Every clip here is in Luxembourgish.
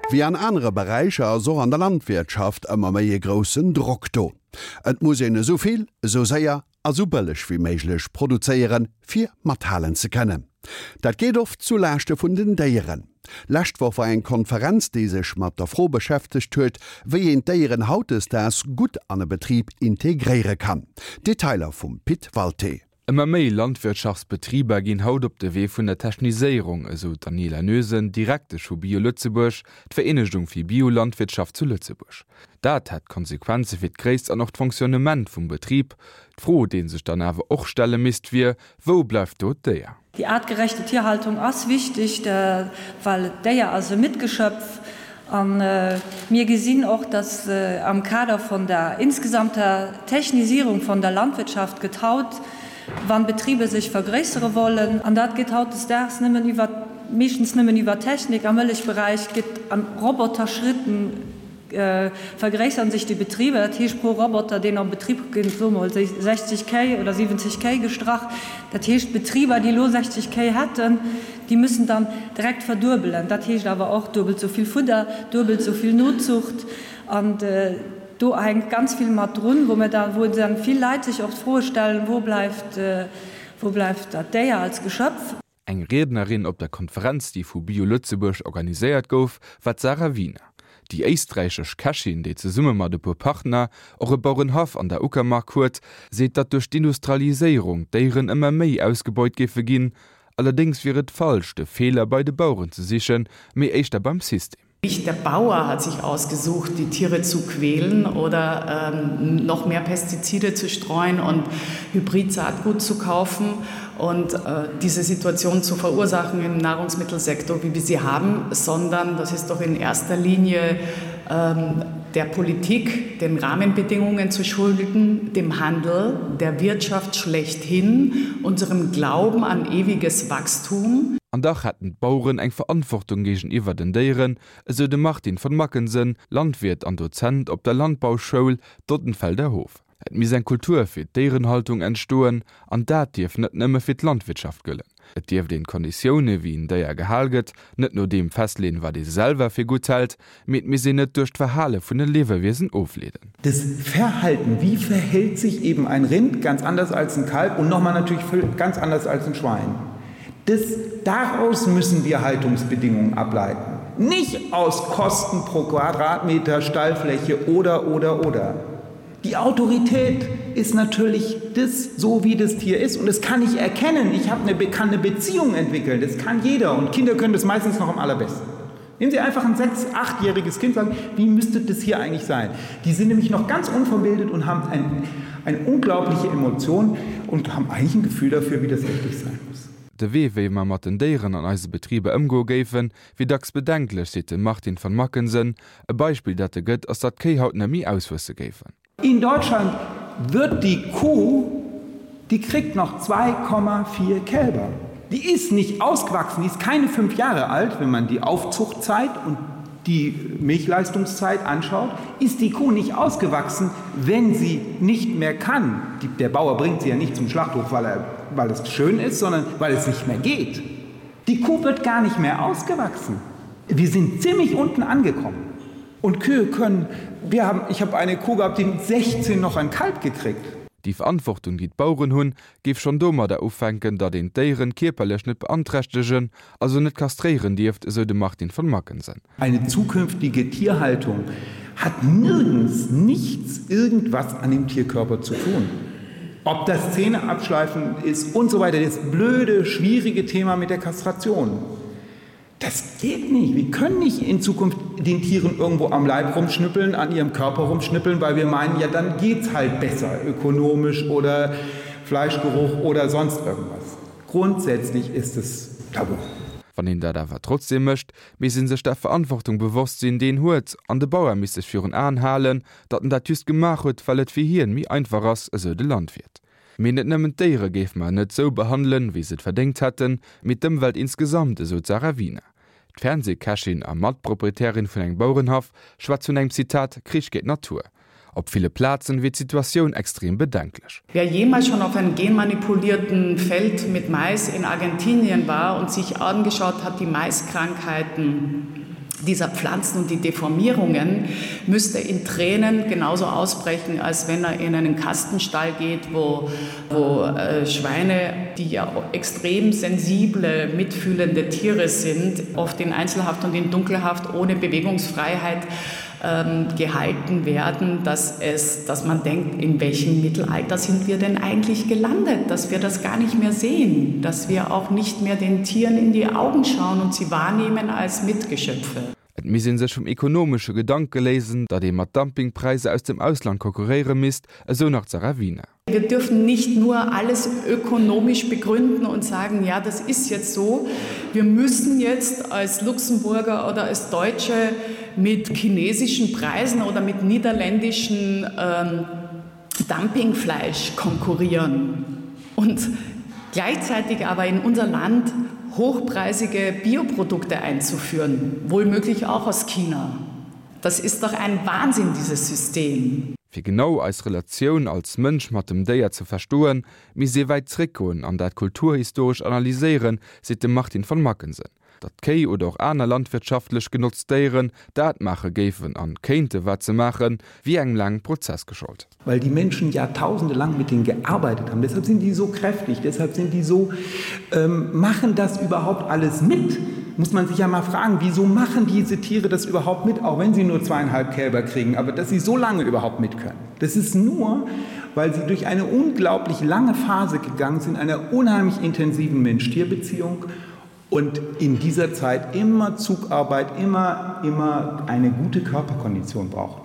Wéi an anere Beräicher ass och an der Landwirtschaft ëmmer méi e groussen Drock do. Et muss een esou vill, esou séier a sou bëlleg wéi méiglech produzéieren, fir mathalen ze kënnen. Dat geet oft zu Laaschte vun den Déieren. Lescht Woch war eng Konferenz, déi sech mat der Fro beschäftegt huet, wéi een d'Déieren hautdesdaags gutt an e Betrib integréiere kann. Detailer vum Pit Walté. Ëmmer méi Landwirtschaftsbetriber ginn haut op de Wee vun der Techniséierung, esou d'Daniela Noesen, Direktesch vu Bio Lëtzebuerg, d'Vereenegung fir Biolandwirtschaft zu Lëtzebuerg. Dat hätt Konsequenze fir d'Gréisst an och d'Fonctionnement vum Betrib. D'Fro, déi ee sech dann awer och stelle misst, wier, Wou bleift do d'Déier? Déi aartgerechte Tierhaltung ass wichteg, well d'Déier ass e Mitgeschöpf. A mir gesinn och, dass am Kader von der insgesamter Technisierung von der Landwirtschaft gëtt haut, wann Betriebe sech vergréissere wollen, an dat geet hautdesdaags nëmmen iwwer, meeschtens nëmmen iwwer Technik, am Mëllechberäich gëtt an Roboterschritten vergréissern sech déi Betriber, dat heescht pro Roboter, deen am Betrib ginn, soe mer mol 60 Kéi oder 70 Kéi gestrach. Dat heescht, Betriber, déi elo 60 Kéi hätten, déi müssen dann direkt verduebelen. Dat heescht awer och duebelt esou vill Fudder, duebelt esou vill Nozucht. An do hänkt ganz vill mat drun, wou mir da, wou dann vill Leit sech och d'Froe stellen, Wo bleift, wo bleift dat Déier als Geschöpf? Eng Riednerin op der Konferenz, déi vu Bio Lëtzebuerg organiséiert gouf, war d'Sarah Wiener. Déi éisträichesch Kächin, déi zesumme mat e puer Partner och e Bauerenhaff an der Uckermark huet, seet, datt duerch d'Industrialiséierung d'Déieren ëmmer méi ausgebeut géife ginn. Allerdéngs wier et falsch, de Feeler bei de Baueren ze sichen, mee éischter beim System. Nicht der Bauer hat sich ausgesucht, die Tiere zu quälen oder ähm, noch mehr Pestizide zu streuen und Hybridsaatgut zu kaufen und äh, diese Situation zu verursachen im Nahrungsmittelsektor, wie wir sie haben, sondern das ist doch in erster Linie ähm, der Politik, den Rahmenbedingungen zu schulden, dem Handel, der Wirtschaft schlechthin, unserem Glauben an ewiges Wachstum. An dach hätten d'Baueren eng Verantwortung géigeniwwer den Déieren, esou de Martin von Mackensen, Landwiert an Dozent op der Landbauschoul Dottenfelder Hof. Et misst eng Kultur fir d'Déierenhaltung entstoen, an dat dierf net nëmme fir d'Landwirtschaft gëllen. Et dierft een d'Konditioune wéi en Déier gehal gëtt, net no deem festleeën, wat ee selwer fir gutt hält, mee et misst een et duerch d'Verhale vun de Liewewiesen ofleeden. Das Verhalten, wie verhält sich eben ein Rind, ganz anders als ein Kalb und nochmal natürlich ganz anders als ein Schwein. Das, daraus müssen wir Haltungsbedingungen ableiten. Nicht aus Kosten pro Quadratmeter Stallfläche oder oder oder. Die Autorität ist natürlich das, so wie das Tier ist und das kann ich erkennen. Ich habe eine bekannte Beziehung entwickeln. Das kann jeder und Kinder können das meistens noch am allerbesten. Nehmen Sie einfach ein sechs-, achtjähriges Kind sagen, wie müsste das hier eigentlich sein? Die sind nämlich noch ganz unverbildet und haben ein, eine unglaubliche Emotion und haben eigentlich ein Gefühl dafür, wie das richtig sein muss. De Wee, wéi mer mat den Déieren an eise Betriber ëmgoe géifen, wier dacks bedenklech, seet de Martin van Mackensen. E Beispill, dat e gëtt, ass datt d'Kéi haut net méi auswuesse géifen. In Deutschland wird die Kuh, die kriegt noch 2,4 Kälber. Die ist nicht ausgewachsen, die ist keine fünf Jahre alt, wenn man die Aufzuchtzeit und die Milchleistungszeit anschaut, ist die Kuh nicht ausgewachsen, wenn sie nicht mehr kann. Die, der Bauer bringt sie ja nicht zum Schlachthof, weil, er, weil es schön ist, sondern weil es nicht mehr geht. Die Kuh wird gar nicht mehr ausgewachsen. Wir sind ziemlich unten angekommen. Und Kühe können wir haben ich habe eine Kuh gehabt, die mit 16 noch ein Kalb gekriegt. Déi Verantwortung, déi d'Baueren hunn, géif schonn domadder ufänken, datt een d'Déieren kierperlech net beanträchtegen, also net kastréieren dierft, esou de Martin von Mackensen. Eine zukünftige Tierhaltung hat nirgends nichts irgendwas an dem Tierkörper zu tun. Ob das Zähne abschleifen ist und so weiter, das blöde, schwierige Thema mit der Kastration. Das geht nicht. Wir können nicht in Zukunft den Tieren irgendwo am Leib rumschnippeln, an ihrem Körper rumschnippeln, weil wir meinen, ja dann geht's halt besser ökonomisch oder Fleischgeruch oder sonst irgendwas. Grundsätzlich ist es tabu. Wann een dat awer trotzdeem mécht, misst ee sech der Verantwortung bewosst sinn, déi een huet, an de Bauer misst sech virun Aen halen, datt en dat just gemaach huet, well et fir hien méi einfach ass, esou de Landwiert. Mee net nëmmen d'Déiere géife mer net sou behandelen, wéi se et verdéngt hätten, mee d'Ëmwelt insgesamt, esou d'Sarah Wiener. D'Fernseekächin a Matproprietärin vun engem Bauerenhaff schwätzt vun engem, Zitat, Krich géint d'Natur. Op ville Plazen wier d'Situatioun extrem bedenklech. Wer jemals schon auf einem genmanipulierten Feld mit Mais in Argentinien war und sich angeschaut hat, die Maiskrankheiten. dieser Pflanzen und die Deformierungen müsste in Tränen genauso ausbrechen, als wenn er in einen Kastenstall geht, wo, wo äh, Schweine, die ja extrem sensible, mitfühlende Tiere sind, oft in Einzelhaft und in Dunkelhaft ohne Bewegungsfreiheit ähm, gehalten werden, dass, es, dass man denkt, in welchem Mittelalter sind wir denn eigentlich gelandet, dass wir das gar nicht mehr sehen, dass wir auch nicht mehr den Tieren in die Augen schauen und sie wahrnehmen als Mitgeschöpfe. Et misst ee sech vum ekonomesche Gedanke léisen, datt ee mat Dumpingpräisser aus dem Ausland konkurréiere misst, esou nach d'Sarah Wiener. Wir dürfen nicht nur alles ökonomisch begründen und sagen, ja, das ist jetzt so. Wir müssen jetzt als Luxemburger oder als Deutsche mit chinesischen Preisen oder mit niederländischen ähm, Dumpingfleisch konkurrieren und gleichzeitig aber in unser Land hochpreisige Bioprodukte einzuführen, wohlmöglich auch aus China. Das ist doch ein Wahnsinn, dieses System. Fir genau eis Relatioun als Mënsch mat dem Déier ze verstoen, misst ee wäit zréckgoen an dat kulturhistoresch analyséieren, seet de Martin von Mackensen. Datt Kéi oder och aner landwirtschaftlech genotzt Déieren dat maache géifen an kéinte wat se maachen, wier engem laangen Prozess geschollt. Weil die Menschen jahrtausende lang mit denen gearbeitet haben. Deshalb sind die so kräftig, deshalb sind die so ähm, machen das überhaupt alles mit. Muss man sich ja mal fragen, wieso machen diese Tiere das überhaupt mit, auch wenn sie nur zweieinhalb Kälber kriegen, aber dass sie so lange überhaupt mit können. Das ist nur, weil sie durch eine unglaublich lange Phase gegangen sind, einer unheimlich intensiven Mensch-Tier-Beziehung und in dieser Zeit immer Zugarbeit, immer, immer eine gute Körperkondition brauchen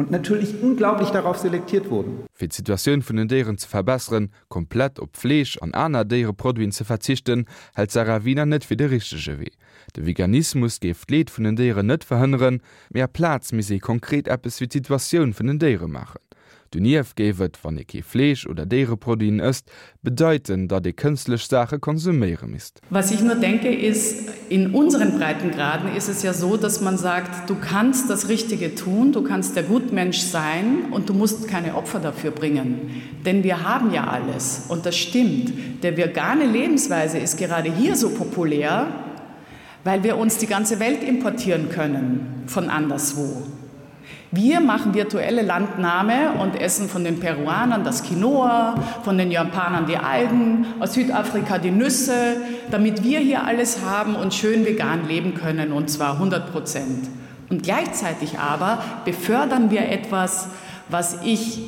und natürlich unglaublich darauf selektiert wurden. Fir d'Situatioun vun den Déieren ze verbesseren, komplett op Fleesch an aner Déiereproduiten ze verzichten, hält d'Sarah Wiener net fir de richtege Wee. De Veganismus géif d'Leed vun den Déieren net verhënneren, mee aplaz misst ee konkret eppes fir d'Situatioun vun den Déiere maachen. Donieft géif et, wann ee kee Fleesch oder Déiereproduiten ësst, bedeiten, datt ee kënstlech Saache konsuméiere misst. Was ich nur denke ist, in unseren Breitengraden ist es ja so, dass man sagt, du kannst das Richtige tun, du kannst der Gutmensch sein und du musst keine Opfer dafür bringen. Denn wir haben ja alles und das stimmt. Der vegane Lebensweise ist gerade hier so populär, weil wir uns die ganze Welt importieren können von anderswo. Wir machen virtuelle Landnahme und essen von den Peruanern das Quinoa, von den Japanern die Algen, aus Südafrika die Nüsse, damit wir hier alles haben und schön vegan leben können und zwar 100 Prozent. Und gleichzeitig aber befördern wir etwas, was ich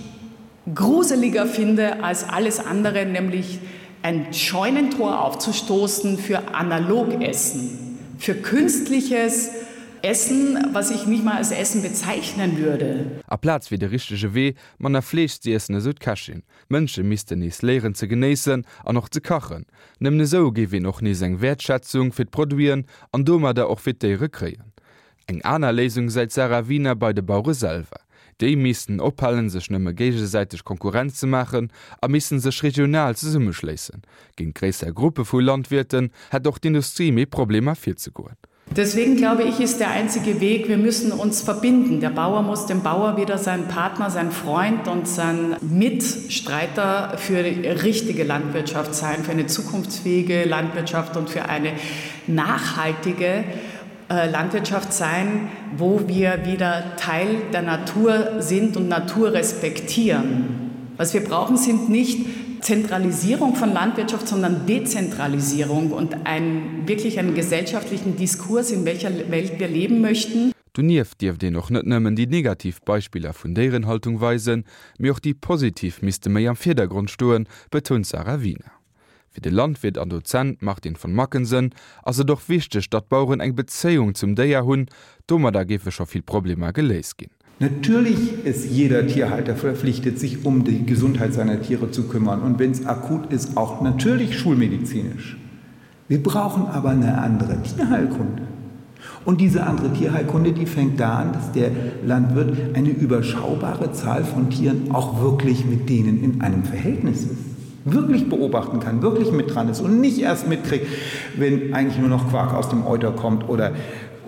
gruseliger finde als alles andere, nämlich ein Scheunentor aufzustoßen für Analogessen, für künstliches Essen, was ich nicht mal als Essen bezeichnen würde. Aplaz wier de richtege Wee, manner Fleesch z'iessen, esou d'Kächin. D'Mënsche missten nees léieren ze genéissen an och ze kachen. Nëmmen esou géif een och nees eng Wäertschätzung fir d'Produiten an domadder och fir d'Déiere kréien. Eng aner Léisung säit d'Sarah Wiener bei de Bauere selwer. Déi missten ophalen, sech nëmme géigesäiteg Konkurrenz ze maachen a missten sech regional zesummeschléissen. Géint gréisser Gruppe vu Landwirten hätt och d'Industrie méi Problemer virzegoen. Deswegen glaube ich, ist der einzige Weg, wir müssen uns verbinden. Der Bauer muss dem Bauer wieder sein Partner, sein Freund und sein Mitstreiter für die richtige Landwirtschaft sein, für eine zukunftsfähige Landwirtschaft und für eine nachhaltige äh, Landwirtschaft sein, wo wir wieder Teil der Natur sind und Natur respektieren. Was wir brauchen, sind nicht Zentralisierung von Landwirtschaft, sondern Dezentralisierung und ein, wirklich einen gesellschaftlichen Diskurs, in welcher Welt wir leben möchten. Donieft dierft een och net nëmmen déi negativ Beispiller vun Déierenhaltung weisen, mee och déi positiv misste méi am Virdergrond stoen, betount d'Sarah Wiener. Fir de Landwiert an Dozent Martin von Mackensen ass et och wichteg, datt d'Baueren eng Bezéiung zum Déier hunn. Domadder géife scho vill Problemer geléist ginn. Natürlich ist jeder Tierhalter verpflichtet, sich um die Gesundheit seiner Tiere zu kümmern und wenn es akut ist, auch natürlich schulmedizinisch. Wir brauchen aber eine andere Tierheilkunde. Und diese andere Tierheilkunde, die fängt da an, dass der Landwirt eine überschaubare Zahl von Tieren auch wirklich mit denen in einem Verhältnis ist wirklich beobachten kann, wirklich mit dran ist und nicht erst mitkriegt, wenn eigentlich nur noch Quark aus dem Euter kommt oder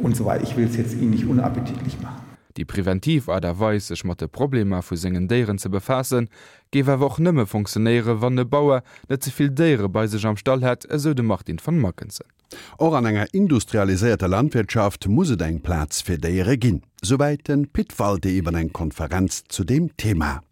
und so weiter. Ich will es jetzt Ihnen nicht unappetitlich machen. Déi preventiv Aart a Weis, sech mat de Problemer vu sengen Déieren ze befaassen, géif awer och nëmme funktionéieren, wann e Bauer net ze vill Déiere bei sech am Stall hätt, esou de Martin van Mackensen. Och an enger industrialiséierter Landwirtschaft muss et eng Plaz fir Déiere ginn. Souwäit de Pit Walté iwwer eng Konferenz zu deem Thema.